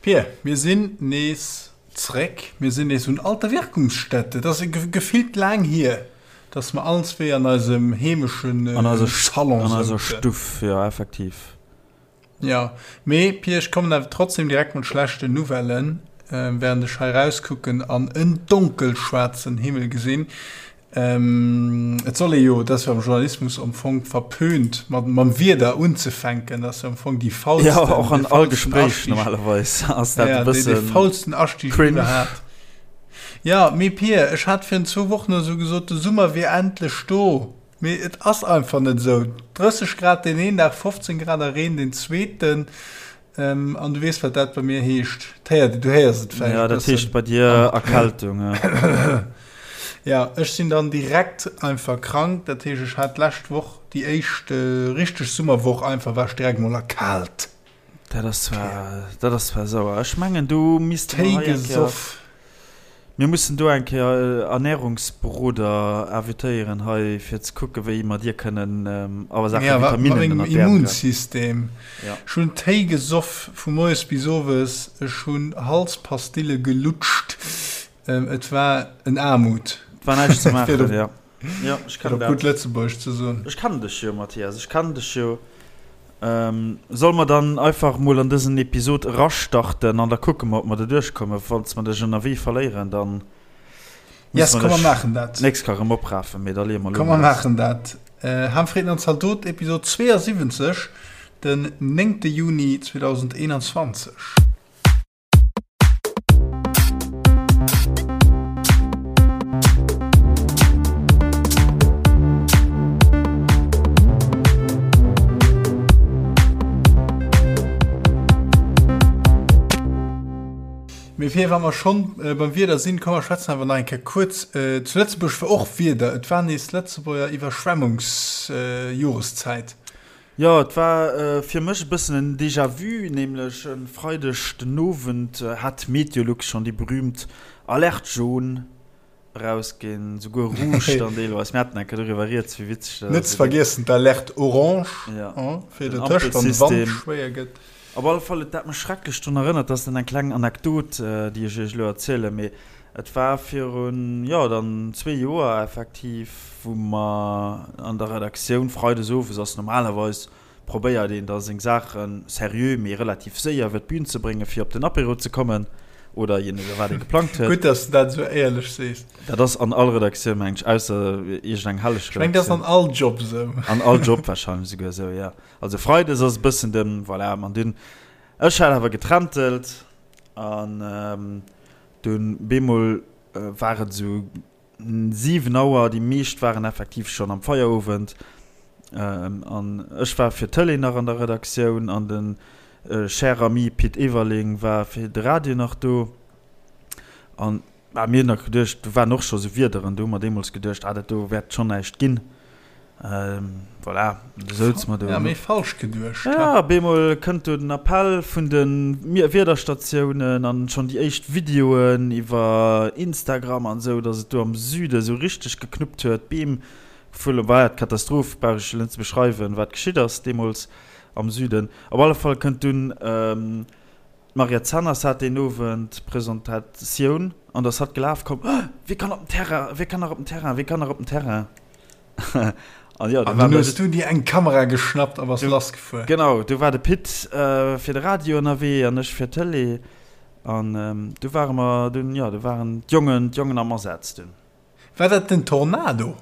Pir, mir sinn nees zréck, mir sinn nees un alter Wirkungsstätte. Et ass gefillt laang hier, dass mer allen zwee an eisem heemeschen Salon souzen. An eiser Stuff, jo, effektiv. Jo, mee Pir, ech kommen awer trotzdem direkt mat schlechten Nouvellen, während ech hei rauskucken an en donkelschwaarzen Himmel gesinn. Et soll ee jo, et ass jo am Journalismus am Fong verpönt, mat mam Wieder unzefänken, dat ass jo am Fong déi faulsten, Jo, och an all Gespréich normalerweis ass dat e bëssen cringe. Dee faulsten Astieg iwwerhaapt. Jo, mee Pir, ech hat virun zwou Wochen oder sou gesot, de Summer wier endlech do. Mee et ass einfach net esou. 30 Grad deen een Dag, 15 Grad a Reen deen zweeten. An du weess, wat dat bei mir heescht. D'héiert, du héiers et vläicht e bëssen. Jo, dat heescht bei dir Erkältung, ja. Ja, ech sinn dann direkt einfach krank. Dat heescht, ech hat d'lescht Woch déi éischt richteg Summerwoch einfach, war ech direkt mol erkaalt. Dat ass zwar, dat ass zwar sauer. Ech mengen, do misste mer hei eng Kéier. Téi gesoff. Mir mussen do eng Kéier Ernährungsberoder invitéieren hei, fir ze kucken, wéi mer dir kënnen a Saache Vitaminen ënnert d'Äerm gräifen. Immunsystem. Ech hunn Téi gesoff vu moies bis owes, ech hunn Halspastille gelutscht. Et war en Aarmut. Et war näischt ze maachen, jo. Jo, ech kennen dat. Fir op gutt Lëtzebuergesch ze soen. Ech kennen dech jo, Mathias, ech kennen dech jo. Solle mer dann einfach mol an dësen Episod erastarten an da kucke mer, ob mer doduerch kommen. Falls mer dech ënnerwee verléieren, dann musse mer dech d'nächst Kéier erëm oprafen. Mee da leeë mer elo mol lass. Komm, mer maachen dat. Ham, Fritten an Zaldot, Episod 72, den 9. Juni 2021. Mee fir wa mer schonn beim Wieder sinn, komm mer schwätzen awer nach eng Kéier kuerz. Zu Lëtzebuerg war och Wieder, et war nees Lëtzebuerger Iwwerschwemmungsjoreszäit. Jo, et war fir mech e bëssen en Déjà-vu, nämlech e Freideg den Owend hat Meteolux schonn déi berüümt Alerte jaune erausginn, souguer rouge dann deelweis. Mir haten eng Kéier doriwwer rieds, wéi witzeg dat ass. Net ze vergiessen d'Alerte orange fir dertëscht, wann de Wand schwéier gëtt. Op alle Fall huet dat mech schrecklech drun erënnert, dat ass dann eng kleng Anekdot, déi ech iech elo erzielen, mee et war virun, jo, dann zwee Joer effektiv, wou mer an der Redaktioun freides owes ass normalerweis probéiert een da seng Saache seriö, mee relativ séier iwwer d'Bün ze bréngen, fir op den Apéro ze kommen oder je no wat ee geplangt huet. Gutt, dass de dat esou éierlech sees. Dat ass an all Redaktioun, meng ech, ausser iergendeng helleg Redaktioun. Ech meng, dat ass an all Job esou. An all Job warscheinlech esouguer esou, jo. Also Freides ass e bëssen den, voilà, an dunn, ech hat awer getrentelt an dunn bemol war et esou 7 Auer, déi meescht waren effektiv schonn am Feierowend an ech war fir d'Tëlee nach an der Redaktioun an de cher ami Pit Everling war fir de Radio nach do an mir hunn nach geduecht, do waren och scho sou Wiederen, do hu mer deemools geduecht, ah dat do wäert schonn näischt ginn. Voilà, du souz mer do. Ja, méi falsch geduecht. Ja, op eemol kënnt do den Appell vun de Wiederstatiounen an schonn déi éischt Videoen iwwer Instagram an esou, datt et do am Süde esou richteg geknuppt huet, d'Beem gefullen. War ja d'Katastroph, brauch ech elo net ze beschreiwen, wat geschitt ass deemools am Süden. Op alle Fall kënnt dunn D'Mariette Zenners hat deen Owend Presentatioun an da ass hatt gelaf komm, Oh, wie kann op den Terrain, wie kann nach op den Terrain, wie kann nach op den Terrain? An jo, du war dunn hues du dir eng Kamera geschnappt a bass lassgefuer. Genau, du war de Pit fir de Radio ënnerwee an ech fir d'Tëlee. An du ware mer dunn, jo, du waren d'Jongen, d'Jongen am Asaz dunn. War dat den Tornado?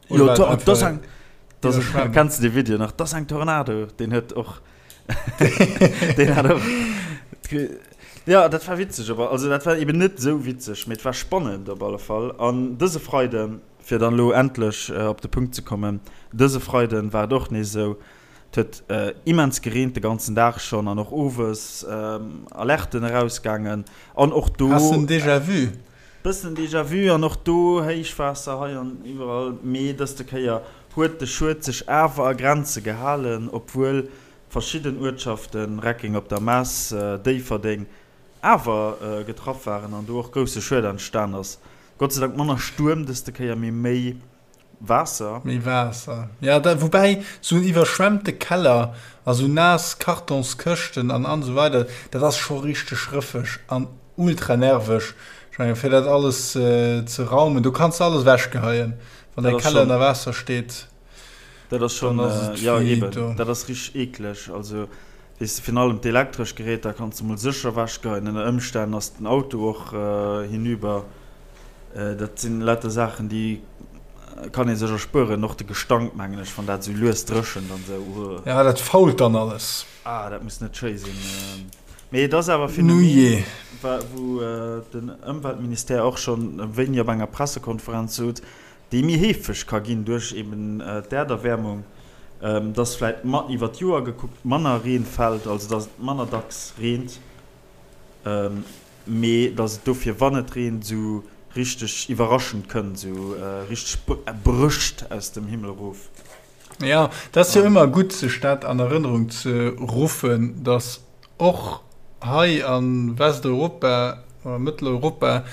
Jo, dat ass eng, dat ass, kenns de dee Video nach? Dat ass eng Tornado, deen huet och, deen hat och, jo, dat war witzeg, awer, also dat war eben net esou witzeg, mee et war spannend op alle Fall. An dëse Freiden, fir dann elo endlech op de Punkt ze kommen, dëse Freiden war et och nees esou, et huet immens gereent de ganzen Dag schonn an och owes Alerten erausgaangen an och do. Has de en Déjà-vu? Bëssen Déjà vu an och do Héichwaasser hei an iwwerall, mee dëste Kéier huet de Schued sech awer a Grenze gehalen, obwuel verschidden Uertschaften, Reckeng op der Mess, Déifferdeng, awer getraff waren an do och grousse Schued entstan ass. Gott sei Dank manner Stuerm dëste Kéier, mee méi. Waasser. Méi Waasser, ja, da, woubäi sou en iwwerschwemmte Keller a sou naass Kartonskëschten an an esou weider, dat ass scho richteg rëffeg an ultra nerveg. Ech mengen, fir dat alles ze raumen, do kanns de alles ewechgeheien, wann däi Keller ënner Waasser steet. Dat ass schon, jo eben, dat ass richteg eekleg. Also weess de, virun allem d'elektresch Geräter kanns de mol sécher ewechgeheien. Ënner Ëmstänn ass den Auto och hinüber. Dat sinn lauter Saachen, déi kann ee sech erspueren. Och de Gestank, mengen ech, wann dat esou lues dréchent an esou. Uuh. Ja, dat fault dann alles. Ah, dat muss net schéi sinn. Mee et ass awer e Phänomen, wou den Ëmweltministère och schonn wéini op enger Pressekonferenz sot, déi méi heefeg ka ginn duerch eben d'Äerderwäermung, dass vläit iwwer d'Joer gekuckt manner Reen fält, also dass et manner dacks reent, mee dass et dofir, wann et reent, esou richteg iwwerraschend kënnt, esou richteg brécht aus dem Himmel erof. Jo, et ass jo ëmmer gutt, sech dat an Erënnerung ze ruffen, dass och hei a Westeuropa oder Mëtteleuropa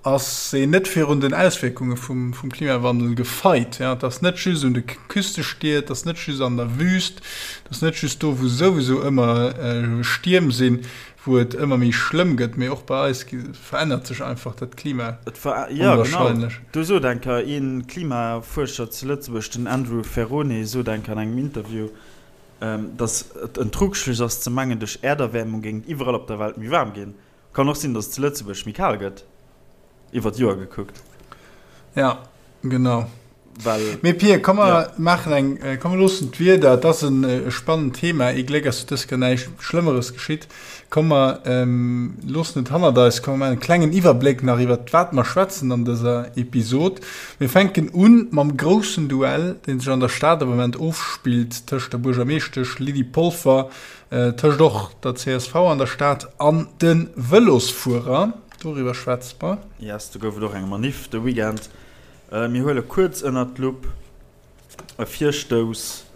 ass een net virun den Auswierkunge vum Klimawandel gefeit. Et ass net just un de Küstestied, et ass net just an der Wüst, et ass net just do, wou souwisou ëmmer Stierm sinn, wou et ëmmer méi schlëmm gëtt, mee och bei eis verännert sech einfach dat Klima onwahrscheinlech. Jo, genau. Do sot eng Kéier ee Klimafuerscher zu Lëtzebuerg, den Andrew Ferrone, sot eng Kéier an engem Interview, datt et en Trugschluss ass ze mengen, duerch Äerderwäermung géing et iwwerall op der Welt méi waarm ginn. Kann och sinn, datt et zu Lëtzebuerg méi kal gëtt, iwwer d'Joer gekuckt. Ja, genau. Well, Mee Pir, komm mer ja. maachen eng, äh, komm mer loossen d'Wieder, et ass en äh, spannend Thema, ee Gléck ass dës Kéier näischt Schlëmmeres geschitt. Komm mer ähm, loossen et hannert eis, komm mer maachen e klengen Iwwerbléck nach iwwer wat mer schwätzen an dëser Episod. Mir fänken un mam groussen Duell, deen sech an der Stad am Moment ofspillt tëscht der Buergermeeschtesch Lydie Polfer, äh, tëscht och der csv an der Stad an de Vëlosfuerer. Doriwwer schwätze mer. Yes, do gouf et och eng Maniff de Weekend. Mir huele kuerz ënnert d'Lupp e Virstouss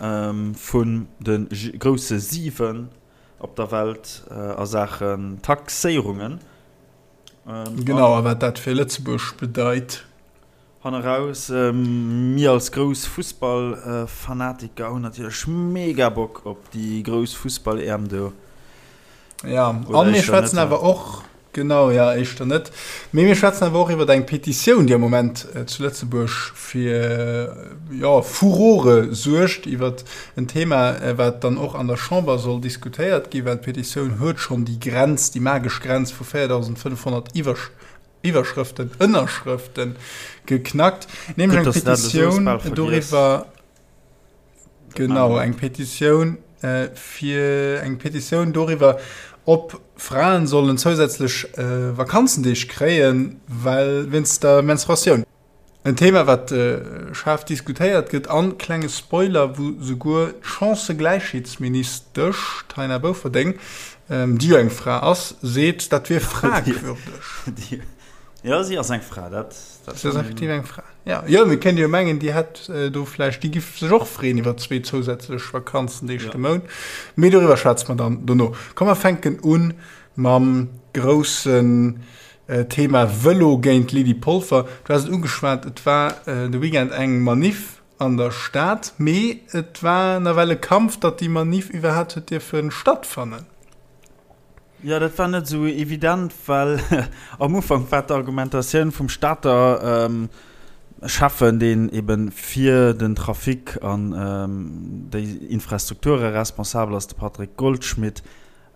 vun de grousse 7 op der Welt a Saachen Taxéierungen. Genau, a wat dat fir Lëtzebuerg bedeit. Hanneraus, mir als grouss Fussballfanatiker hunn natierlech mega Bock op déi grouss Fussball-EM do. Ja, a mir schwätzen awer och, genau, ja, éischter net, mee mir schwätzen awer och iwwer eng Petitioun, déi am Moment zu Lëtzebuerg fir, jo, Furore suergt, iwwer en Thema, wat dann och an der Chamber soll diskutéiert ginn, well d'Petitioun huet schonn déi Grenz, déi magesch Grenz vu 4.500 Iwwerschrëften, Ënnerschrëften geknackt, nämlech eng Petitioun doriwwer, Genau, eng Petitioun fir eng Petitioun doriwwer, ob Fraen sollen zousätzlech Vakanzendeeg kréien, well wéinst der Menstruatioun. En Thema, wat schaarf diskutéiert gëtt an, klenge Spoiler, wou souguer d'Chancëgläichheetsministesch Taina Bouferdeng, déi jo eng Fra ass, seet, dat wier fragwürdeg. Jo, si ass eng Fra, dat. Si ass effektiv eng Fra. Ja, jo, mir kéinte jo mengen, déi hätt do vläicht, déi giff sech och freeën iwwer zwee zousätzlech Vakanzendeeg de Mount. Mee doriwwer schwätze mer dann dono. Komm, mer fänken u mam groussen Thema Vëlo géint Lydie Polfer. Du has et ugeschwat, et war de Weekend eng Maniff an der Stad, mee et war nawell e Kampf, datt déi Maniff iwwerhaapt huet dierfe stattfannen. Jo, dat war net esou evident, well am Ufank war d'Argumentatioun vum Stater Schäffen, deen ebe fir den Trafic an déi Infrastrukture responsabel ass, de Patrick Goldschmidt,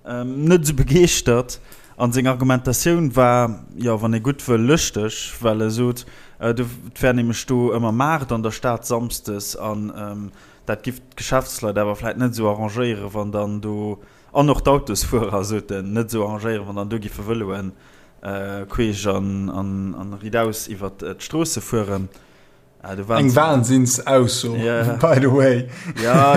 net esou begeeschtert. An seng Argumentatioun war, jo, wann ee gutt wëll, lëschteg, well e sot, et wär nämlech do ëmmer Maart an der Stad samsdes an dat giff d'Geschäftsleit awer vläit net esou arrangéieren, wann dann do An och d'Autosfuerer, sot en, net esou arrangéieren, wann dann do giffe Vëloen queesch an ridaus iwwert d'Stroosse fueren. Eng Wahnsinnsausso, by the way.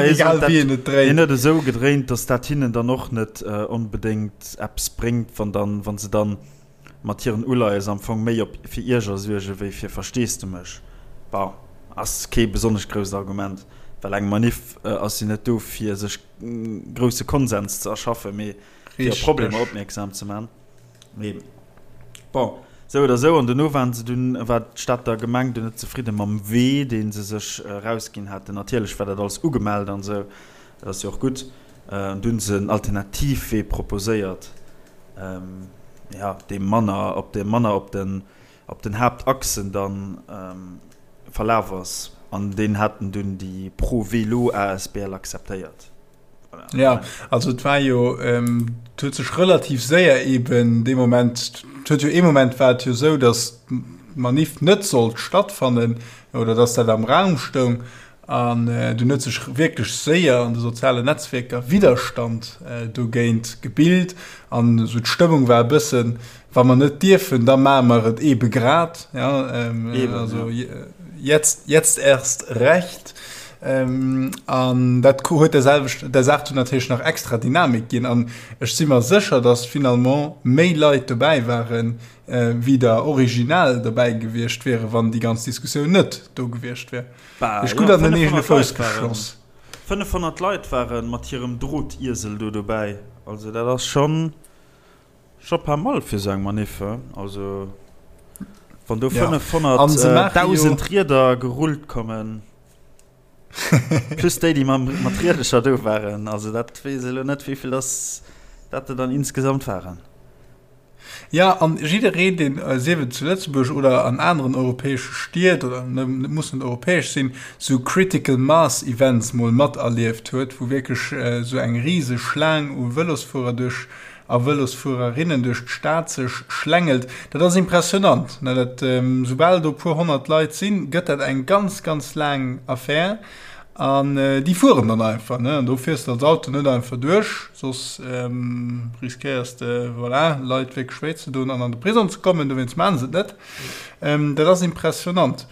Egal wéi een et dréint. Hien huet esou gedréint, datt dat hinnen dann och net onbedéngt eppes bréngt, wann dann, wa se dann mat hiren Uleies am Fong méi op fir Ierger suerge wéi fir Versteesdemech. Bon, ass kee besonnesch grousst Argument, well eng Maniff ass jo net do fir sech grousse Konsens ze erschaffen, mee fir op Problemer opmierksam ze man. Mee bon, Sou oder sou, an dono waren se dunn, war d'Stater Gemeng dunn net zefridde mam Wee, dee se sech erausginn haten. Natierlech war dat alles ugemellt an esou, dat ass jo och gutt. An du hunn se en Alternativwee proposéiert, jo, dee manner op dee manner op den op den Haaptachsen dann verlaf ass. An deen haten dunn déi Pro Vélo asbl akzeptéiert. Ja, also et war jo, et huet sech relativ séier eben dee Moment, et huet jo ee Moment war et jo esou, datt d'Manif net sollt stattfannen oder datt dat am Raum stoung an dunn huet sech wierklech séier an de sozialen Netzwierker Widderstand dogéint gebilt an esou d'Stëmmung war e bëssen, Wa mer net dierfen, da maache mer et eebe grad. Ja, ähm, Eben, also ja. jetzt, jetzt erst recht. Ähm, an dat huet der selwecht der Saach natierlech nach extra Dynamik ginn. An ech si mer sécher, datt finalement méi Leit dobäi waren, äh, wéi der original dobäi gewiescht wiere, wann déi ganz Diskussioun net do gewiescht wär. Bah, Ech gutt ja, an den eegene Fouss geschoss. 500 Leit waren mat hirem Drotiesel do dobäi. Also dat ass schonn. Scho pas mal fir sou eng Manif, he? Also wann do 500.000 Rieder gerullt kommen, plus déi, déi mat Riedercher do waren, also dat weess ech elo net, wéivill dass dat der dann insgesamt waren. Jo, an jiddereen, deen, sief et zu Lëtzebuerg oder an aneren europäesche Stied, oder et muss net europäesch sinn, sou Critical Mass Events mol materlieft huet, wou wierklech sou eng riseg Schlaang u Vëlosfuerer duerch a Vëlosfuererinnen duerch d'Stad sech schlängelt, dat ass impressionant. Dat, soubal do e puer 100 Leit sinn, gëtt dat eng ganz, ganz laang Affär. An déi fueren dann einfach, ne? An do fiers de als Auto net einfach duerch, soss riskéiers de, voilà, Leit wierklech wéi ze doen an an de Prisong ze kommen. Dowéinst maache se et net. Dat ass impressionant.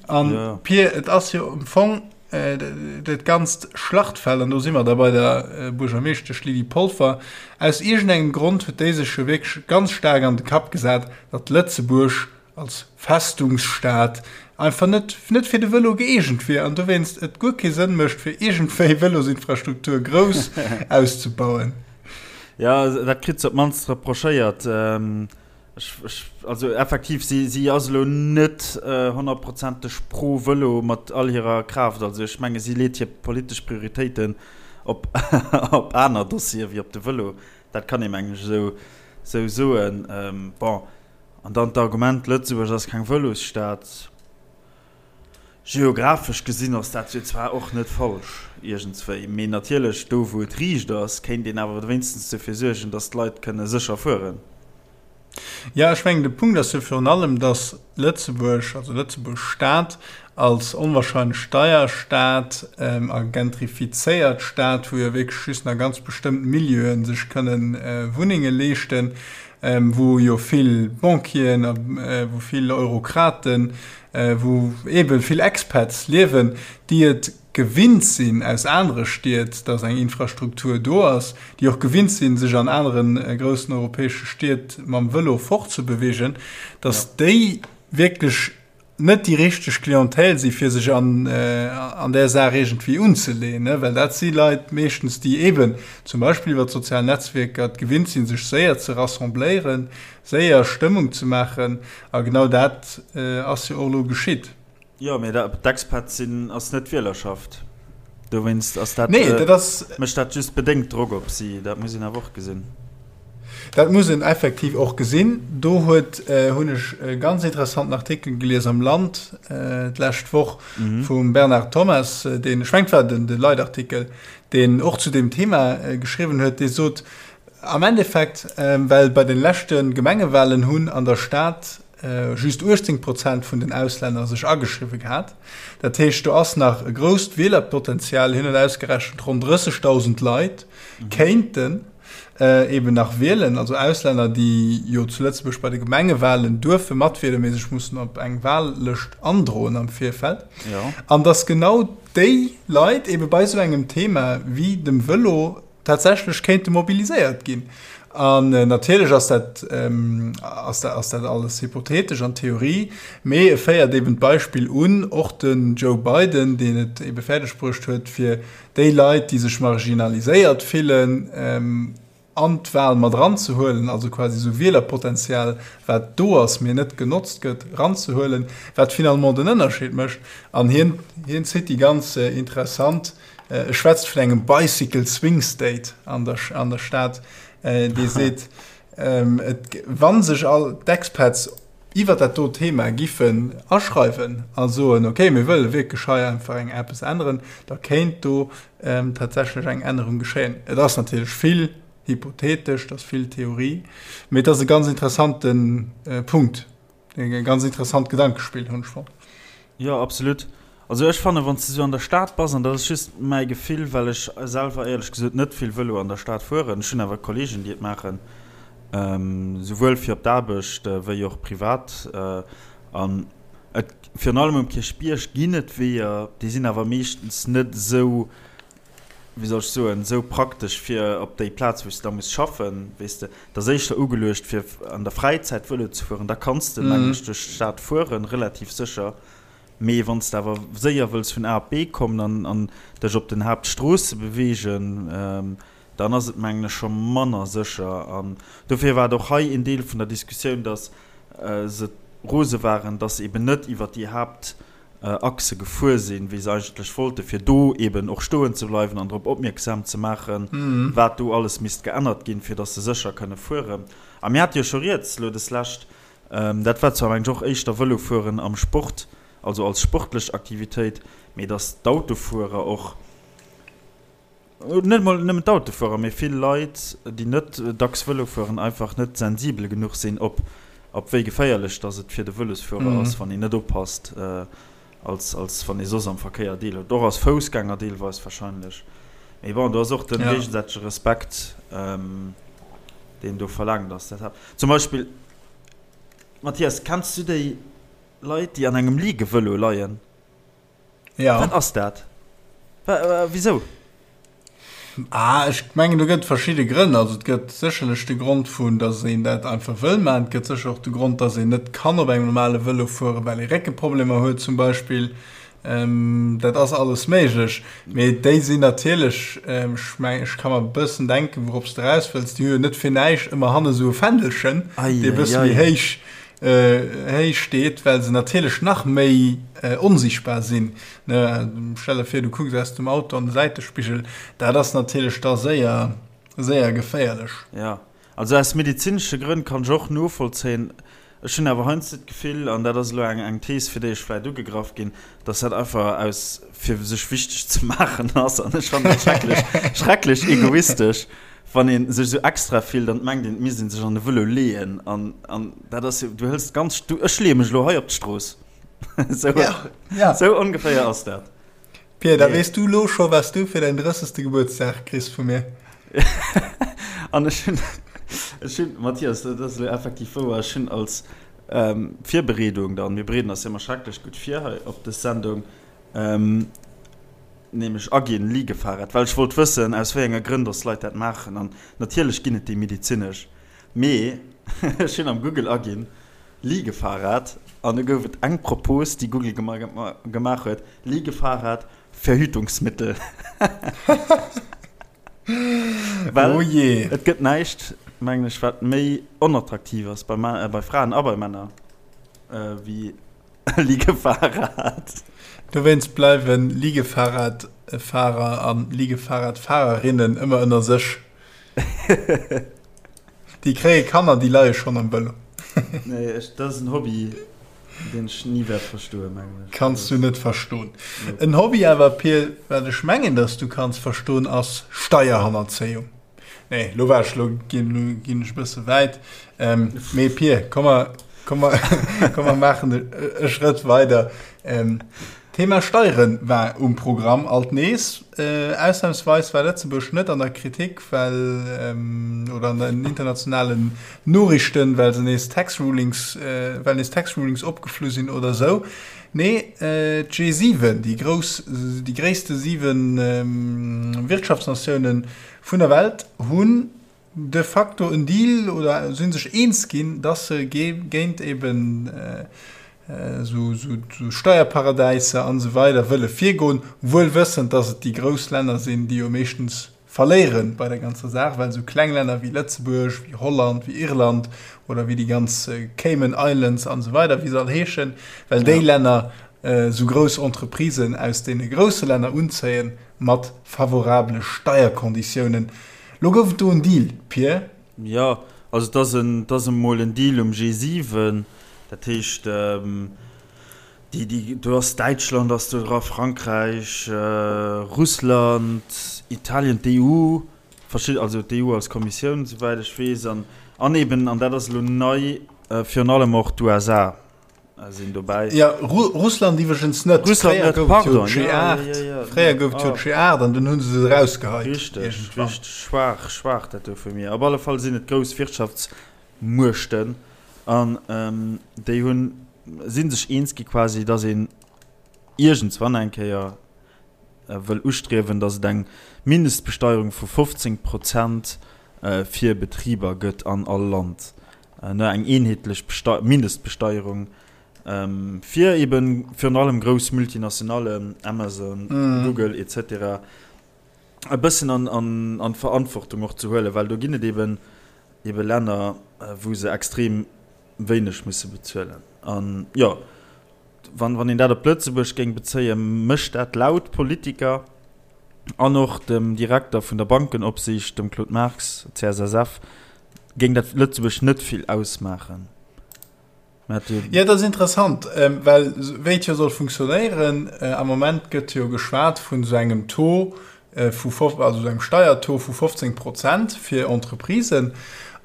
An Pir, et ass jo am Fong, Dat ganzt Schlachtfeld, an do si mer da bei der Buergermeeschtesch Lydie Polfer, aus iergendengem Grond huet déi sech jo wierklech ganz staark an de Kapp gesat, datt Lëtzebuerg als Festungsstad einfach net net fir de Vëlo gëeegent wier an dowéinst et guer kee Sënn mécht, fir iergendwéi Vëlosinfrastruktur grouss auszebauen. Jo, dat kritt se op d'mannst reprochéiert. Ech, ech, also effektiv, si, si ass elo net honnertprozenteg pro Vëlo mat all hirer Kraaft. Also ech menge si leet hir politesch Prioritéiten op, op aner Dossiere wéi op de Vëlo. Dat kann ee mengen ech esou, esou soen. Bon, an dann d'Argument, Lëtzebuerg ass keng Vëlosstad. Geographesch gesinn ass dat jo zwar och net falsch iergendswéi, mee natierlech do wou et riicht ass, kéint een awer wéinstens dofir suergen, datt d'Leit kënne sécher fueren. Jo, ech mengen de Punkt ass jo virun allem, datt Lëtzebuerg, also Lëtzebuerg Stad als onwahrscheinlech deier Stad a gentrifizéiert Stad, wou jo wierklech just nach ganz bestëmmt Milieuen sech kënnen Wunnenge leeschten, wou jo vill Banquieren a wou vill Eurokraten, wou eebe vill Expats liewen, déi et gewinnt sinn aus anere Stied, dass eng Infrastruktur do ass, déi och gewinnt sinn, sech an anere groussen europäesche Stied mam Vëlo fortzebewegen, dass déi wierklech net déi richteg Clientèle si fir sech an an där Saach iergendwéi unzeleeën, well dat si Leit meeschtens, déi eeben zum Beispill iwwer d'sozial Netzwierker et gewinnt sinn, sech séier ze rassembléieren, séier Stëmmung ze maachen. A genau dat ass jo och elo geschitt. Jo, mee d'Expats sinn ass net d'Wielerschaft. Dowéinst ass dat, nee, dat ass, mécht dat just bedéngt Drock op si. Dat muss een awer och gesinn. Dat muss een effektiv och gesinn. Do huet, hunn ech e ganz interessanten Artikel gelies am Land d'lescht Woch vum Bernard Thomas, deen, ech mengen et war den de Leitartikel, deen och zu deem Thema geschriwwen huet, dee sot, am Endeffekt, well bei de leschte Gemengewahlen hunn an der Stad just 18 Prozent vun den Auslänner sech ageschriwwe gehat. Dat heescht, do ass nach e grousst Wielerpotenzial. Hien huet ausgerechent, ronn 30.000 Leit kéinten eben nach wielen, also Auslänner, déi jo zu Lëtzebuerg bei de Gemengewahlen duerfe matwielen, mee sech mussen op eng Wahllëscht androen am Virfeld. An datt genau déi Leit ebe bei esou engem Thema wéi dem Vëlo tatsächlech kéinte mobiliséiert ginn. An natierlech ass dat, ass dat, ass dat alles hypothetesch an Theorie, mee e féiert eben d'Beispill un, och den Joe Biden, deen et ebe fäerdeg bruecht huet, fir déi Leit, déi sech marginaliséiert fillen. an d'Wahl mat eranzehuelen, also quasi esou Wielerpotenzial, wat do ass, mee net genotzt gëtt, eranzehuelen, wat finalement den Ënnerscheed mécht. An hien, hien zitt déi ganz interessant, e schwätzt vun engem Bicycle Swing State an der, an der Stad, dee seet, et, wa sech all d'Expats iwwert dat do Thema giffen aschreiwen a soen, okay, mir wëlle wierklech hei einfach eng eppes änneren, da kéint do tatsächlech eng Ännerung geschéien. Et ass natierlech vill hypothetesch, et ass vill Theorie, mee et ass e ganz interessante Punkt, e ganz interessant Gedankespill, hunn ech fonnt. Jo, absolut. Also ech fannen, wann s de sou an der Stad bass, an dat ass just mäi Gefill, well ech selwer éierlech gesot net vill Vëlo an der Stad fueren, ech hunn awer Kollegen, déi et maachen, souwuel fir op d'Aarbecht wéi och privat, an et, virun allem um Kierchbierg ginn et Weeër, déi sinn awer meeschtens net esou, wéi soll ech soen, esou praktesch fir op déi Plaz, wou s de da muss schaffen, weess de. Et ass éischter ugeluecht, fir an der Fräizäit Vëlo ze fueren, da kanns de, mengen ech, duerch d'Stad fueren, relativ sécher. Mee wann s de awer séier wëlls vun A op B kommen an an dech op den Haaptstroosse beweegen, dann ass et, mengen ech, scho manner sécher. An dofir war et och hei een Deel vun der Diskussioun, dass se rose waren, dass se eben net iwwert déi Haaptachse gefuer sinn, wéi se eigentlech wollten, fir do eben och stoen ze bleiwen an drop opmierksam ze maachen, wat do alles misst geännert ginn, fir dass se sécher kënne fueren. A mir hate jo scho rieds elo deslescht Dat war zwar mengen ech och éischter Vëlofueren am Sport, also als sportlech Aktivitéit, mee dass d'Autofuerer och, net emol nëmmen d'Autofuerer, mee vill Leit, déi net dacks Vëlo fueren, einfach net sensibel genuch sinn op op wéi geféierlech dass et fir de Vëlosfuerer ass, wann een net oppasst, als als wann ee soss am Verkéier deelhëlt, och als Foussgänger deelweis wahrscheinlech. Mee bon, do ass och de géigesäitege Respekt, deen do verlaangt ass. Dat zum Beispill, Mathias, kenns du déi Leit, déi an engem Ligevëlo leien? Ja. Wat ass dat? Wisou? Ah, ech mengen, do gëtt verschidde Grënn. Also et gëtt sécherlech de Grond vun, datt een dat einfach wëll maachen. Et gëtt sécher och de Grond, datt een net kann op engem normale Vëlo fueren, well ee Réckeproblemer huet zum Beispill. Dat ass alles méiglech. Mee déi sinn natierlech, ech mengen, ech ka mer e bëssen denken, wourop s de eraus wëlls, déi hu jo net fir näischt ëmmer hanne sou e Fändelchen, dee e bësse méi héich héich steet, well se natierlech nach méi onsichtbar sinn. Stell der vir, du kucks aus dem Auto an de Säitespigel, dat ass natierlech da séier, séier geféierlech. Jo, also aus medezinesche Grënn kann ech och novollzéien. Ech hunn awer heiansdo d'Gefill, an dat ass elo eng eng Thees, fir déi ech vläicht ugegraff ginn, dass dat einfach aus fir sech wichteg ze maachen ass. An ech fannen dat schrecklech, schrecklech egoistesch, wann ee sech esou extra fillt an et mengt een, et misst ee sech an de Vëlo leeën. An, an dat ass jo, du hëls ganz, du, ech leeë mech elo hei op d'Strooss. Esou, Ja, ja. esou ongeféier ass dat. Pia, da weess du lo scho, wat s du fir däin drëssegste Gebuertsdag kriss vu mir. An ech hunn, ech hunn, Mathias, dat ass elo effektiv wouer, ech hunn als Virbereedung dann, mir bereeden eis jo ëmmer schrecklech gutt vir hei op dës Sendung, nämlech aginn, Liegefahrrad, well ech wollt wëssen, aus wéi enge Grënn dass d'Leit dat maachen. An natierlech ginn et déi medezinesch, mee ech hunn am Google aginn, Liegefahrrad an du gouf et eng Propos, déi Google gemaach huet, Liegefahrrad, Verhütungsmittel. Well oh je. Et gëtt näischt, mengen ech, wat méi onattraktiv ass bei, bei Fraen a bei Männer wéi e Liegefahrrad. Dowéinst bleiwe Liegefahrradfahrer a Liegefahrradfahrerinnen ëmmer ënner sech. Déi kréie Kanner, déi leie schonn am Vëlo. Nee, ech, dat ass en Hobby, deen ech ni wäert verstoen, mengen ech. Kanns du net verstoen. En Hobby awer, Pir, wat ech mengen, dass du kanns verstoen, ass Steierhannerzéiung. Nee, lo war ech, lo ginn, lo ginn ech e bësse wäit. Ähm, mee Pir, komm mer, komm mer, komm mer maachen e, e Schrëtt weider. Ähm, Thema Steiere war um Programm alt nees. Ausnamsweis war Lëtzebuerg net an der Kritik, well, oder an den internationalen Noriichten, well se nees Tax Rulings, well nees Tax Rulings opgeflu sinn oder esou. Nee, d'G7, déi grouss, déi gréisste 7 Wirtschaftsnatiounen vun der Welt hunn de facto en Deal oder si sech eens ginn, dass se géint eben esou Steierparadäiser an esou weider wëlle virgoen, wuel wëssend, dass et déi grouss Länner sinn, déi jo meeschtens. verléiere bei der ganzer Saach, well esou kleng Länner wéi Lëtzebuerg, wéi Holland, wéi Irland oder wéi déi ganz Cayman Islands an esou weider, wéi se all heeschen, well déi Länner esou grouss Entreprisen aus deene grousse Länner unzéien mat favorabele Steierkonditiounen. Lo gouf et do en Deal, Pir. Jo, also et ass en, et ass emol en Deal um G7, dat heescht, déi, déi, do ass Däitschland ass do dra, Frankräich, Russland, Italien, d'EU, verschidde, also d'EU als Kommissioun, souwäit ech weess, an, an eben, an dat ass elo nei, virun allem och d'USA. sinn dobäi. Ja, Ru Russland iwwregens net. Russland Fréier net, gouf et jo pardon. Ja, ja, G8. ja, ja. Fréier gouf et jo Ah. G8 an dunn hu se se erausgeheit. Richteg, Iergendwann. richteg. Schwaach, schwaach dat do vu mir. Op alle Fall sinn et grouss Wirtschaftsmuechten an déi hunn, si sech eens gi quasi, datt een iergendswann eng Kéier wëll ustriewen, datt et eng Mindestbesteierung vu 15 Prozent fir Betriber gëtt an all Land. Ne, eng eenheetlech Mindestbesteierung fir eben virun allem grouss Multinationallen, Amazon, Google et cetera, e bëssen an, an, an d'Verantwortung och ze huelen, well do ginn et eben ebe Länner, wou se extrem wéineg musse bezuelen. An jo, wann, wann een dat op Lëtzebuerg géing bezéien, mécht dat laut Politiker an och dem Direkter vun der Bankenopsiicht, dem Claude Marx, CSSF, Géing dat Lëtzebuerg net vill ausmaachen. Jo, dat ass interessant, well wéi et jo soll funktionéieren, am Moment gëtt jo geschwat vun esou engem Taux vu, also esou engem Steiertaux vu 15 Prozent fir Entreprisen.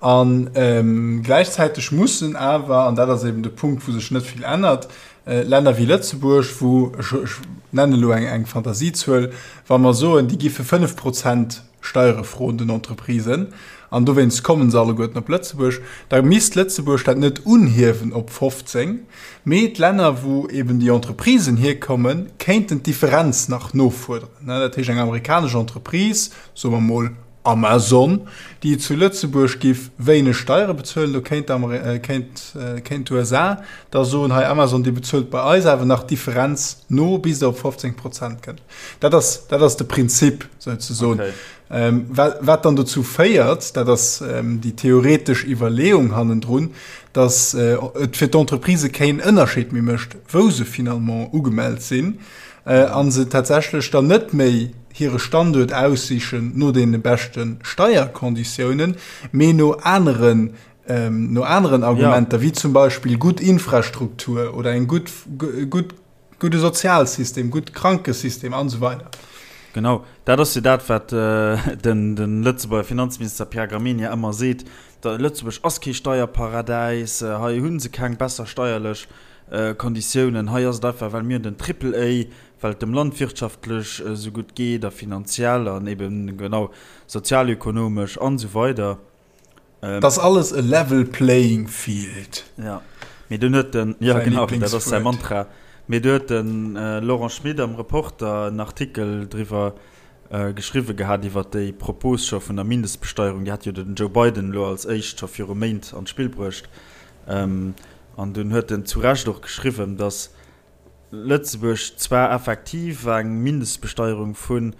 A gläichzäiteg mussen awer, an dat ass eben de Punkt, wou sech net vill ännert, Länner wéi Lëtzebuerg, wou, ech nennen elo eng Fantasiezuel, wa mer soen, déi gi fir 5 Prozent Steiere froen den Entreprisen, an dowéinst kommen se alleguerten op Lëtzebuerg, da misst Lëtzebuerg dat net unhiewen op 15, mee d'Länner, wou eben déi Entreprisen hierkommen, kéinten d'Differenz nach nofuerderen. Dat heescht, eng amerikanesch Entreprise, soe mer mol Amazon, déi zu Lëtzebuerg giff wéineg Steiere bezuelen, do kéint kéint d'USA da soen, hei Amazon, dir bezuelt bei eis awer nach d'Differenz no, bis der op 15 Prozent kënnt. Dat ass, dat ass de Prinzip souzesoen. Okay. Ähm, wat, wat dann dozou féiert, dat ass ähm, déi theoretesch Iwwerleeung hannendrun, dass äh, et fir d'Entreprise keen Ënnerscheed méi mécht, wou se finalement ugemellt sinn, äh, an se tatsächlech dann net méi hire Standuert aussichen no deene beschte Steierkonditiounen, mee no aneren ähm, no aneren Argumenter, ja. wéi zum Beispill gutt Infrastruktur oder eng gutt gutt Gudde Sozialsystem, gutt Krankesystem an esou weider. Genau, dat ass jo dat, wat den Lëtzebuerger Finanzminister Pierre Gramegna ëmmer seet, Lëtzebuerg ass kee Steierparadäis, hei hu se keng besser steierlech Konditiounen, hei ass et einfach, well mir hunn den Triple A, well et dem Land wirtschaftlech esou gutt geet a finanziell an eben genau sozialökonomesch an esou weider. Ähm, das alles e level playing field. Ja. Mee dunn huet den, ja genau, dat ass säi Mantra. Mee du huet den äh, Laurent Schmit am Reporter en Artikel driwwer äh, geschriwwe gehat iwwer déi Propos scho vun der Mindestbesteierung. Déi hat jo den Joe Biden elo als éischt scho viru Méint an d'Spill bruecht. Ähm, an dunn huet en zu Recht och geschriwwen, datt Lëtzebuerg zwar effektiv eng Mindestbesteierung vu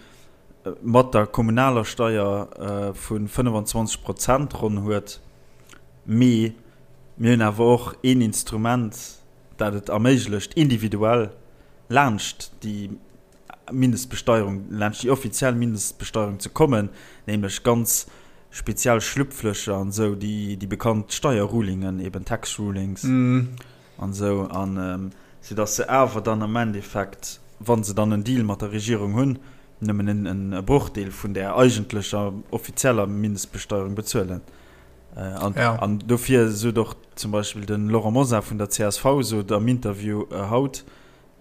mat der kommunaler Steier vu 25 Prozent ronn huet, mee mir hunn awer och een Instrument, dat et erméiglecht, individuell laanscht déi Mindestbesteierung, laanscht déi offiziell Mindestbesteierung ze kommen, nämlech ganz speziell Schlupflöcher an esou, déi bekannt Steierrulingen, eben Tax Rulings. An esou, an sou dass se awer dann am Endeffekt, wa se dann en Deal mat der Regierung hunn, nëmmen en e Brochdeel vun där eigentlecher offizieller Mindestbesteierung bezuelen. An, ja. an dofir sot och zum Beispill de Laurent Mosar vun der csv sot am Interview haut,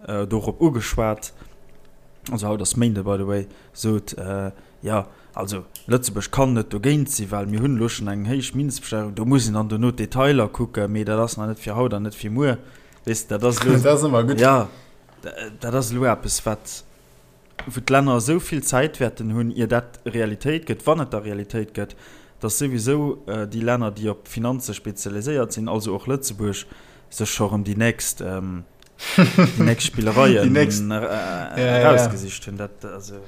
dorop ugeschwat, also haut ass Méinde by the way, sot, jo, also Lëtzebuerg kann net dogéint sinn, well mir hunn elo schonn eng héich Mindestbesteierung, do muss een dann dono d'Detailer kucken, mee dat ass nach net fir haut an net fir muer. Weess de, dat ass elo, Dat ass ëmmer gutt. jo, dat ass elo eppes, wat, wou d'Länner esou vill Zäit wäerten hunn, ier dat Realitéit gëtt, wann et da Realitéit gëtt, datt souwisou déi Länner, déi op Finanze spezialiséiert sinn, also och Lëtzebuerg, sech scho rëm déi nächst, déi nächst Spillereien Déi nächst, erausgesicht hunn. Dat, also.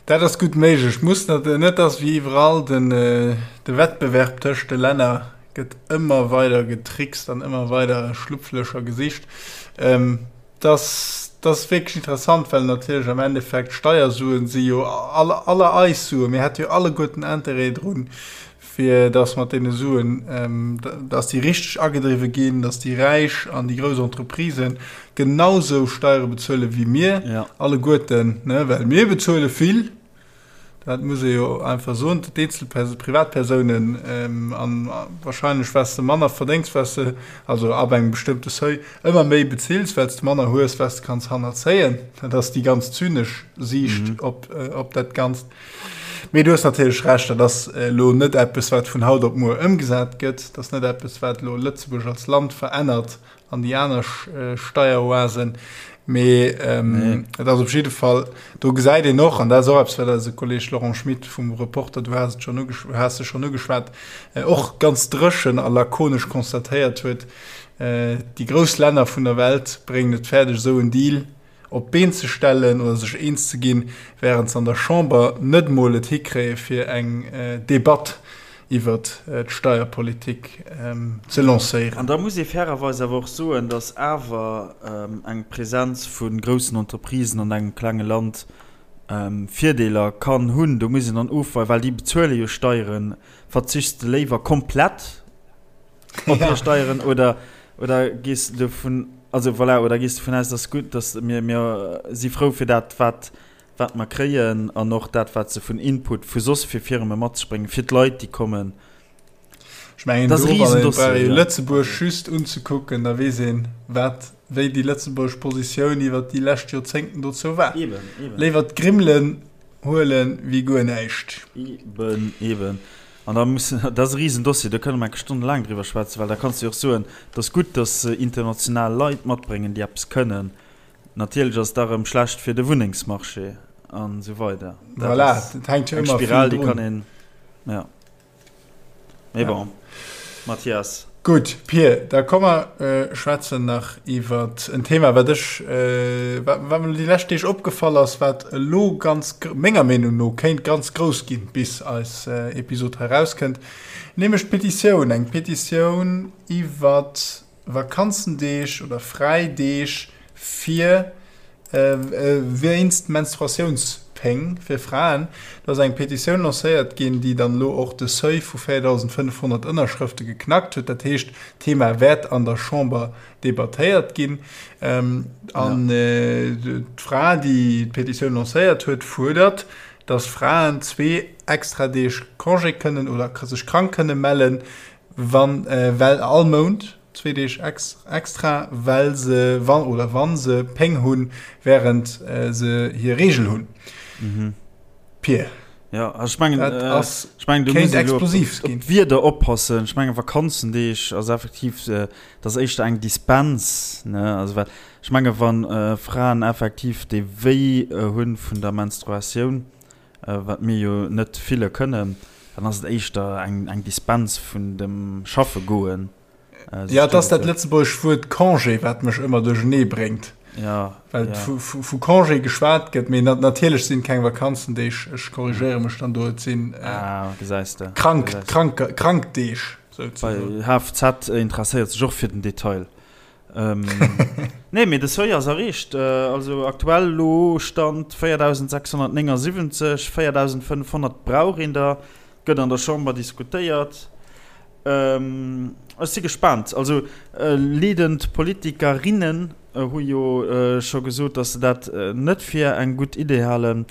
Dat ass gutt méiglech. Muss net, net dass wéi iwwerall den, de Wettbewerb tëscht de Länner gëtt ëmmer weider getrickst an ëmmer weider Schlupflöcher gesicht. Dass, dat ass wierklech interessant, well natierlech am Endeffekt d'Steiersuen si jo aller, aller eis Suen. Mir hätte jo alleguerten Interêt drun, fir dass mat deene Suen, dass déi richteg agedriwwe ginn, dass déi Räich an déi grouss Entreprisen genausou Steiere bezuele wéi mir alleguerten, ne, well mir bezuele vill. Dat muss ee jo einfach soen, d'Eenzelpersonen, d'Privatpersounen, an wahrscheinlech wat s de manner verdéngs, wat s de, also ab engem bestëmmte Seuil, ëmmer méi bezills, well s de manner hues, wat s de kanns hannerzéien. Dat ass déi ganz zynesch Siicht op, op dat Ganzt. Mee du hues natierlech Recht, dat ass elo net eppes, wat vun haut op muer ëmgesat gëtt. Dat ass net eppes, wat elo Lëtzebuerg als Land verännert an déi aner Steieroasen. Mee et ass op jidde Fall, do gesäit een och, an dat ass och eppes, wat eise Kolleeg Laurent Schmit vum Reporter, du has et schonn ugesch-, has e schonn ugeschwat, och ganz dréchen a lakonesch constatéiert huet, Déi grouss Länner vun der Welt bréngen et fäerdeg, esou en Deal op d'Been ze stellen oder sech eens ze ginn, wärend se an der Chamber net mol et hikréie fir eng Debatt iwwert d'Steierpolitik ze lancéieren. An da muss ee fairerweis awer och soen, datt awer eng Presenz vu groussen Entreprisen an engem klenge Land Virdeeler kann hunn. Do muss een dann ofweien, well déi bezuele jo Steieren. Verzichts de léiwer komplett op hir Steieren oder, oder gees de dovun, also voilà, oder gees dovun aus, datt gutt, datt mir, mir si frou fir dat, wat, wat mer kréien an och dat, wat se vun Input vu soss fir Firme mat sech bréngen, fir d'Leit, déi kommen. Ech mengen, do, wann een brauch ee Lëtzebuerg just unzekucken, da weess een, wat, wéi déi lëtzebuergesch Positioun iwwert déi lescht Joerzéngten dozou war. Eben, eben. Léiwer d'Grimmelen huelen wéi guer näischt. Eben, eben. An da muss, dat ass e Risendossier, do kënne mer enke stonnelaang driwwer schwätzen, well da kanns de jo och soen, et ass gutt, datt se international Leit matbréngen, déi eppes kënnen. Natierlech ass et da rëm schlecht fir de Wunnengsmarché an esou weider. Dat voilà, ass dat hänkt jo eng ëmmer vill Spiral, déi drun. kann een, ja. Mee Ja. bon, Mathias. Gutt, Pir, da komm mer schwätzen nach iwwer en Thema, wat ech, wat wat mer déi lescht Deeg opgefall ass, wat elo ganz, menger Meenung no, kéint ganz grouss ginn, bis eis Episod hei erauskënnt, nämlech d'Petitioun, eng Petitioun iwwer Vakanzendeeg oder Fräideeg fir wéinst Menstruatiounspéng fir Fraen. Do ass eng Petitioun lancéiert ginn, déi dann elo och de Seuil vu 4.500 Ënnerschrëfte geknackt huet. Dat heescht, d'Thema wäert an der Chamber debattéiert ginn. An d'Fra, déi d'Petitioun lancéiert huet, fuerdert, datt Fraen zwee extra Deeg Congé kënnen oder sech krank kënne mellen, Wann, well all Mount zwee Deeg extra, well se, wann oder wann se Péng hunn, während se hir Reegel hunn. Mhm. Pir. Ja, also ech mengen, Dat ass, ech mengen, do kéint muss een elo op, explosiv op ginn. d'Wierder oppassen. Ech mengen, Vakanzendeeg ass effektiv, dat ass éischter eng Dispens, ne? Also well ech menge wann Fraen effektiv dee Wéi hunn vun der Menstruatioun, wat mir jo net fille kënnen, dann ass et éischter eng Dispens vun dem Schaffe goen. Jo, et ass dat lëtzebuergescht Wuert Congé, wat mech ëmmer duerchenee bréngt. Ja, well vu Congé geschwat gëtt, mee natierlech sinn et keng Vakanzendeeg, ech korrigéiere mech dann do, et sinn krank, krank, krank Deeg souzesoen. HFZ interesséiert sech och fir den Detail. Nee, mee de Seuil ass erreecht. Also aktuell elo Stand 4.679, 4.500 brauch een der. Gëtt an der Chamber diskutéiert. Ech si gespaant. Also leadend Politikerinnen hu jo scho gesot, datt se dat net fir eng gutt Idee halen.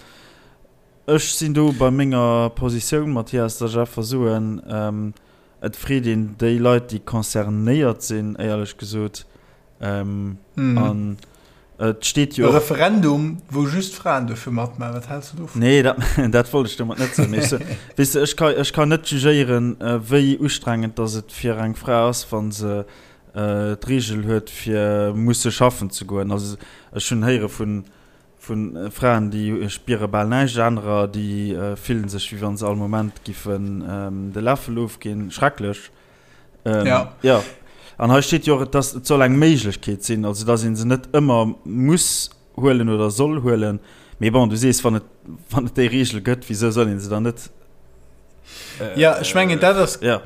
Ech sinn do bei menger Positioun, Mathias, datt ech einfach soen, Et freet een déi Leit, déi concernéiert sinn, éierlech gesot. An et steet jo och. E Referendum, wou just Fraen duerfe matmaachen, wat häls de dovun? Nee, dat, dat wollt ech domat net soen. Mee ech, weess de, ech ka, ech kann net jugéieren, wéi ustrengend datt et fir eng Fra ass, wa se d'Reegel huet, fir musse schaffen ze goen. Also ech hunn héiere vun Vu Fraen, déi spiere bal näischt, anerer, déi fillen sech, wéi wann se all Moment giffen de Läffel ofginn. Schrecklech. Ja. Jo. An hei steet jo och, et ass, et soll eng Méiglechkeet sinn, also datt ee se net ëmmer muss huelen oder soll huelen. Mee bon, du sees, wann et, wann et déi Reegel gëtt, wisou soll een se dann net. Äh, ja, ech mengen, dat ass, ja.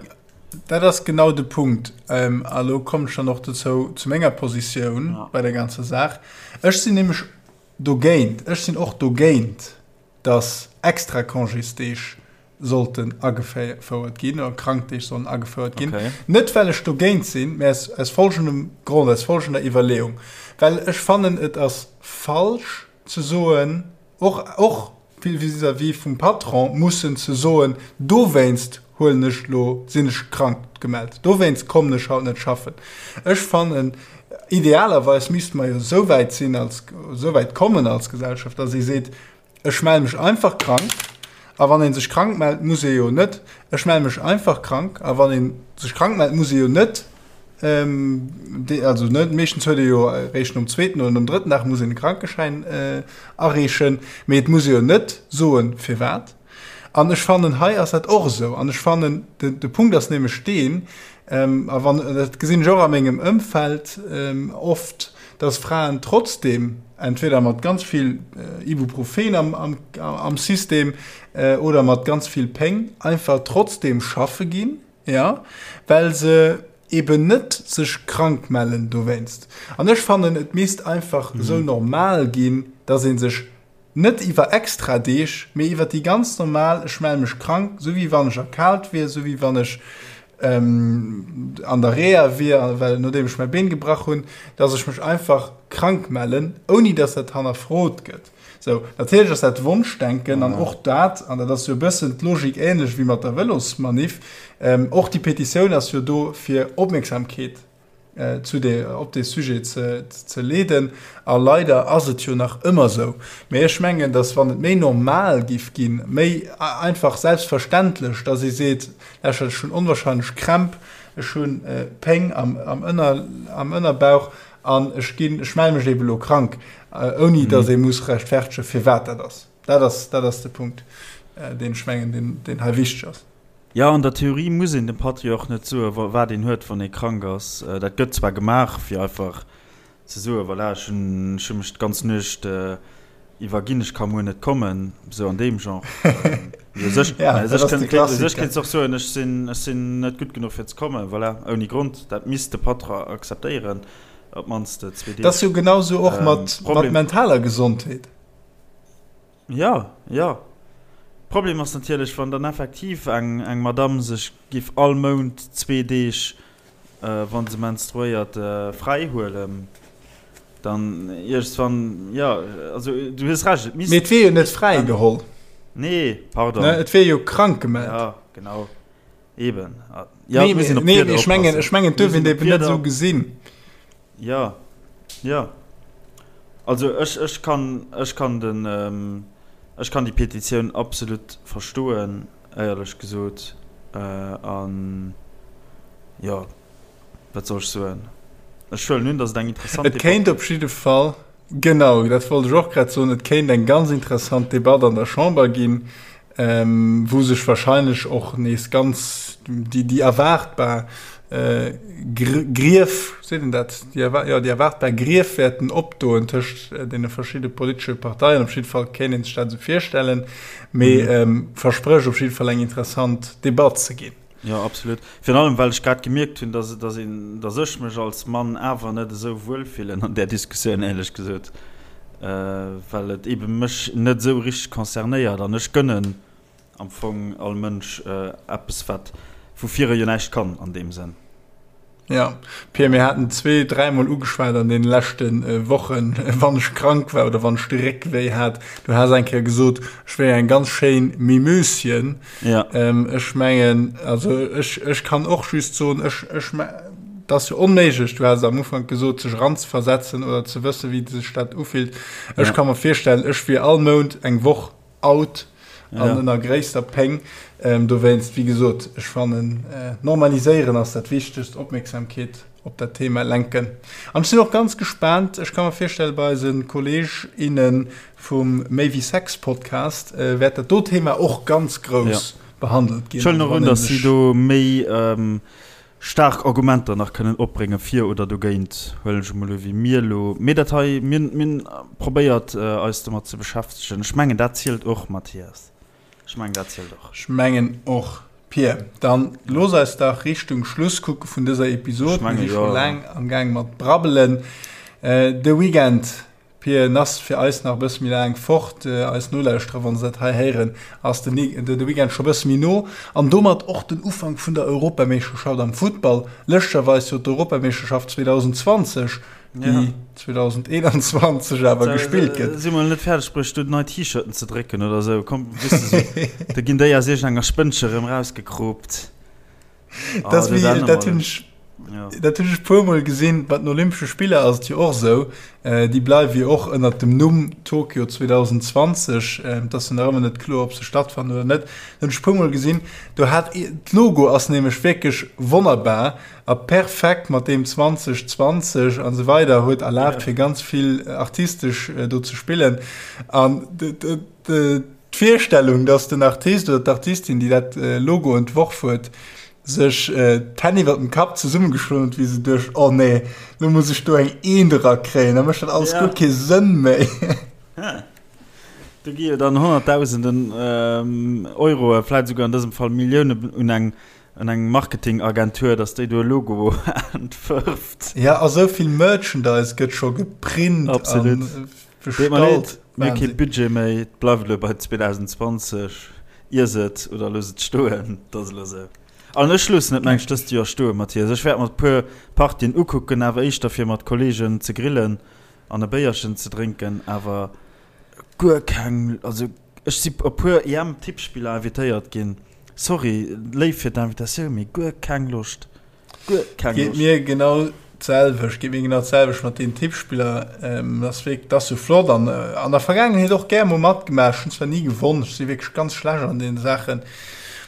dat ass genau de Punkt. Ähm, a lo kommen ech dann och dozou, zu menger Positioun ja. bei der ganzer Saach. Ech sinn nämlech dogéint, ech sinn och dogéint, dass extra Congésdeeg sollten agefouert ginn oder Krankdeeg sollen agefouert ginn. Okay. Net well ech dogéint sinn, mä aus, aus folgendem Grond, aus folgender Iwwerleeung. Well ech fannen, et ass falsch ze soen, och, och vis-à-vis vum Patron mussen ze soen, dowéinst huelen ech elo, sinn ech krank gemellt, dowéinst kommen ech haut net schaffen. Ech fannen, idealerweis misste mer jo esou wäit sinn als, esou wäit kommen als Gesellschaft, dass ee seet, Ech melle mech einfach krank. A wann ee sech krank mellt, muss ee jo net, ech melle mech einfach krank. A wann ee sech krank mellt, muss ee jo net, also net, meeschtens huet ee jo eréischt nom zweeten oder nom drëtten Dag muss een e Krankeschäin areechen, mee et muss ee jo net soen, firwat. An ech fannen, hei ass dat och esou. An ech fannen, de Punkt ass nämlech deen, a wann, dat gesinn ech och a mengem Ëmfeld oft, dass Fraen trotzdem entweder mat ganz vill Ibuprofen am, am, am System oder mat ganz vill Péng einfach trotzdem schaffe ginn, ja, well se eben net sech krank mellen dowéinst. An ech fannen, et misst einfach esou normal ginn, dass ee sech Net iwwer extra Deeg, mee iwwer déi ganz normal, ech melle mech krank, sou wéi wann ech erkaalt wier, sou wéi wann ech an der Reha wier, well nodeem ech mäi Been gebrach hunn, dass ech mech einfach krank mellen, ouni dass dat hannerfrot gëtt. Sou, natierlech ass dat Wonschdenken an och dat, an dat ass jo e bëssen d'Logik änlech wéi mat der Vëlosmanif, och déi Petitioun ass jo do fir Opmierksamkeet zu de, op dee Sujet ze, ze leeden. A leider ass et jo nach ëmmer esou. Mee ech mengen, datt wann et méi normal giff ginn, méi einfach selbstverständlech, datt ee seet, Lauschtert, ech hunn onwahrscheinlech Krämp, ech hu Péng am, am Ënner, am Ënnerbauch an ech ginn, ech melle mech eebe lo krank, ouni datt ee muss rechtfertegen, firwat dat ass. Dat ass, dat ass de Punkt, deen ech mengen, deen, deen hei wichteg ass. Jo, an der Theorie muss een dem Patri och net soen, wat een huet, wann ee krank ass. Dat gëtt zwar gemaach, fir einfach ze soen, voilà, ech hunn ech hu mech d'ganz Nuecht iwwerginn, ech ka muer net kommen, esou an deem Genre. Mee u sech, Ja, u dat sech ass de kënnt, u sech Klassiker. kéints och soen, ech sinn, ech sinn net gutt genuch fir ze kommen, voilà, ouni Grond. Dat misst de Patron akzeptéieren, op d'mannst zwee Dat ass Deeg. jo genau sou och mat, mat Problem. mentaler Gesondheet. Jo, jo. Problem ass natierlech, wann dann effektiv eng eng Madame sech giff all Mount zwee Deeg, wa se menstruéiert, fräi huelen, dann iergendswann, jo, also du hues Recht, et misst. Mee et wier jo net fräi geholl. Nee, pardon. Ne, et wier jo krank gemellt. Ja, genau. Eben. Jo, et muss een op d'Wierder oppassen. Nee, ech mengen, ech mengen, et duerf een et eben net esou gesinn. Jo, jo. Also ech, ech kann, ech kann den, ech kann déi Petitioun absolut verstoen, éierlech gesot. An jo, wat soll ech soen? Ech huelen un, datt et eng interessant Debatt. Et kéint op jidde Fall, genau, dat wollt ech och grad soen, et kéint eng ganz interessant Debatt an der Chamber ginn, wou sech wahrscheinlech och nees ganz déi, déi erwaartbar Grief, seet een dat, déi, jo, déi erwaartbar Grief wäerten opdoen tëscht deene verschidde politesche Parteien. Op jidde Fall kéint ee sech dat esou virstellen, mee versprécht op jidde Fall eng interessant Debatt ze ginn. Jo, absolut. Virun allem, well ech grad gemierkt hunn, dass, dass een, dass ech mech als Mann awer net esou wuel fillen an där Diskussioun, éierlech gesot, well et eebe mech net esou richteg concernéiert an ech gënnen am Fong all Mënsch eppes, wat, woufir e jo näischt kann an deem Sënn. Jo, Pir, mir haten zwee-, dräimol ugeschwat an deene leschte Wochen, wann ech krank war oder wann ech de Réck wéi hat. Du has eng Kéier gesot, ech wéi eng ganz schéin Mimöschen. Ja. Ech mengen, also ech, ech kann och just soen, ech, ech, et ass jo onméiglech, du has am Ufank gesot, sech eranzeversetzen oder ze wëssen, wéi sech dat ufillt. Ech Ja. ka mer virstellen, ech wier all Mount eng Woch out an Ja. ënner gréisster Péng. Ähm, dowéinst, wéi gesot, ech fannen, äh, normaliséieren ass dat Wichtegst, Opmierksamkeet op dat Thema lenken. An ech sinn och ganz gespaant, ech ka mer virstellen, bei eise Kolleg, innen vum Méi wéi Sex Podcast äh, wäert dat do Thema och ganz Ja. grouss behandelt ginn. Ech huelen Also och wann un, ee dass si sech do méi, ähm. Staark Argumenter nach kënnen opbrénge fir oder dogéint, huelen ech emol u wéi mir elo. Mee dat hei, mir hunn probéiert eis domat ze beschäftegen. Ech mengen dat zielt och, Mathias. Ech mengen dat zielt och. Ech mengen och. Pir, dann looss eis dach Richtung Schluss kucke vun dëser Episod. Mir si scho laang am Gaang mat brabbelen. De Weekend Pir, en ass fir eis nach e bësse méi laang fort. Eis Nolauschterer, wa se dat hei héieren, ass de de Weekend scho e bësse méi no. An domat och den Ufank vun der Europameeschterschaft am Futtball. Lëschtgerweis jo d'Europameeschterschaft 2020, déi 2021 awer gespillt gëtt. Si mol net fäerdeg bruecht, do nei T-Shirten ze drécken oder esou. Komm, weess de sou, da ginn déi aus iergendenger Spënnche erëm rausgekroopt. Dat ass wéi, dat hunn ech, dat hunn ech e puermol gesinn, bei den Olympesche Spiller ass et jo och esou, déi bleiwe jo och ënnert dem Numm Tokio 2020, et ass jo nach ëmmer net kloer, ob se stattfannen oder net. Dat hunn ech e puermol gesinn, do hat d'Logo ass nämlech wierklech wonnerbar a perfekt mat deem 2020 an esou weider, huet erlaabt fir ganz vill artistesch do ze spillen an D'Virstellung, dass den Artist oder d'Artistin, déi dat Logo entworf huet, sech d'Hänn iwwer dem Kapp zesummegeschloen huet, wéi se duecht, Oh nee, lo muss ech do eng Eent erakréien, da mécht dat alles guer kee Sënn méi. Do gi jo dann Honnertdausenden Euroe, vläit esouguer an dësem Fall Milliounen un eng un eng Marketingagentur, dass déi do e Logo entwërft. Ja, a sou vill Merchandise gëtt scho geprint a Deet mer leed, mir hu kee Budget méi, et bleift elo bei 2020. Iess et oder looss et stoen, et ass elo esou. An ech loossen et, meng ech, dëst Joer stoen, Mathias. Ech wäert mer e puer Partien ukucken, awer éischter fir mat Kolleegen ze grillen an e Béierchen ze drénken, awer guer keng, also ech si op e puer EM-Tippspiller invitéiert ginn, sorry, léif fir d'Invitatioun, mee guer keng Loscht. Geet mir genau d'selwecht, geet mir genau d'selwecht mat den Tippspiller. Ähm, das wierk, das so flott an äh, an der Vergaangenheet och gär mol matgemaach. Ech hunn zwar ni gewonn, ech si wierklech ganz schlecht an deene Saachen,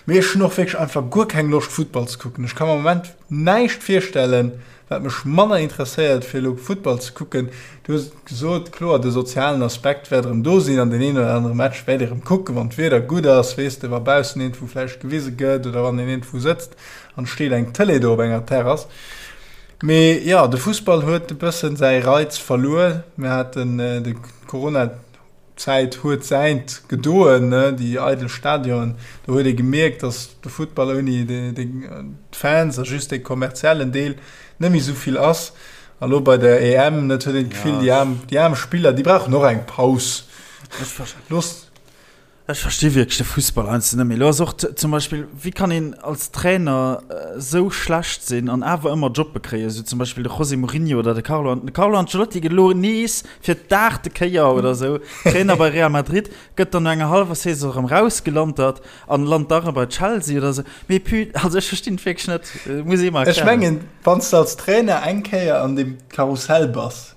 mee ech hunn och wierklech einfach guer keng Loscht Futtball ze kucken. Ech ka mer am Moment näischt virstellen, wat mech manner interesséiert fir elo Futtball ze kucken. Du hues et gesot, kloer de sozialen Aspekt wäert erëm do sinn an deen een oder anere Match wäert ee erëm kucken, wann d'Wieder gutt ass, weess de, wa baussen iergendwou vläicht gewise gëtt oder wann een iergendwou sëtzt an steet eng Tëlee do op enger Terrass. Mee jo, de Fussball huet e bëssen säi Reiz verluer. Mir haten de Corona-Zäit huet säint gedoen, ne, déi eidel Stadionen. Do huet ee gemierkt, datt de Futtball ouni d'Fans a just dee kommerziellen Deel net méi esou vill ass. A lo bei der EM, net, huet een d'Gefill, déi aarm, déi aarm Spiller, déi brauchen och eng Paus. Looss. Ech versti wierklech de Fussball heiansdo net méi. Elo ass och zum Beispill, wéi kann een als Trainer esou schlecht sinn an awer ëmmer Jobbe kréien, esou zum Beispill de José Mourinho oder de Carlo, de Carlo Ancelotti gëtt elo nees fir d'aachte Kéier oder esou Trainer bei Real Madrid, gëtt dann no enger hallwer Saison erëm rausgelantert an lant da erëm bei Chelsea oder esou. Mee pu, also ech verstinn et wierklech net, muss ee mer erklären. Ech mengen, wann s de als Trainer eng Kéier an deem Karussell bass,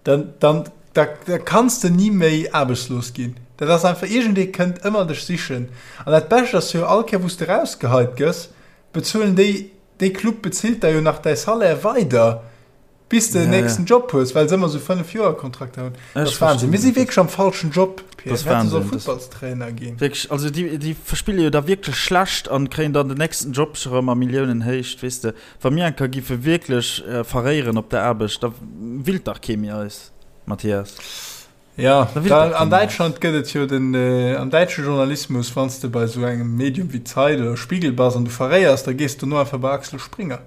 Dann, dann, da, da kanns de ni méi aarbechtslos ginn. Dat ass einfach, iergendee kënnt ëmmer dech sichen. An dat Bescht ass jo, all Kéier wou s de rausgeheit gëss, bezuelen déi, dee Club bezilt der jo nach däi Salaire weider, bis de den nächsten Job hues, well se ëmmer esou Fënnef-Joer-Kontrakter hunn. Dat ass Wahnsinn. Mir si wierklech am falschen Job, Pierre. Mir hätte solle Futtballstrainer ginn. Wierklech, also déi, déi verspille jo da wierklech schlecht an kréien dann den nächsten Job scho rëm a Milliounenhéicht, weess de. Wa mir eng Kéier giffe wierklech verréieren op der Aarbecht, da willt dach kee méi eis, Mathias. Ja, da, an Däitschland gëtt et jo den, am däitsche Journalismus, wann s de bei esou engem Medium wéi Zeit oder Spiegel bass an du verréiers, da gees du dono einfach bei Axel Springer.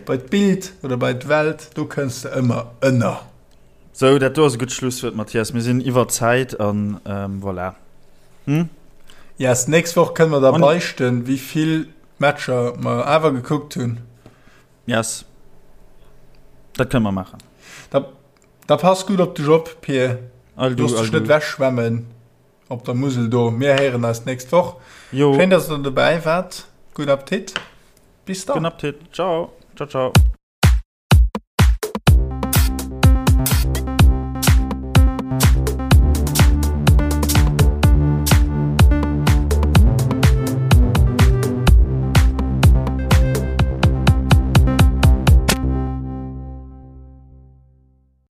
Bei d'Bild oder bei d'Welt, do kënns de ëmmer ënner. Sou, dat do ass e gutt Schlusswuert, Mathias. Mir sinn iwwer Zäit an voilà. Hm? Yes, d'nächst Woch kënne mer da beichten, wéi vill Matcher mer awer gekuckt hunn. Yes. Dat kënne mer maachen. Da, da pass gutt op dech op, Pir. Looss dech net wechschwemmen op der Musel do. Mir héieren eis d'nächst Woch. Jo. Schéin, dass der dobäi waart. Gudden Appetit. Bis dann. Gudden Appetit. Ciao. Ciao, ciao.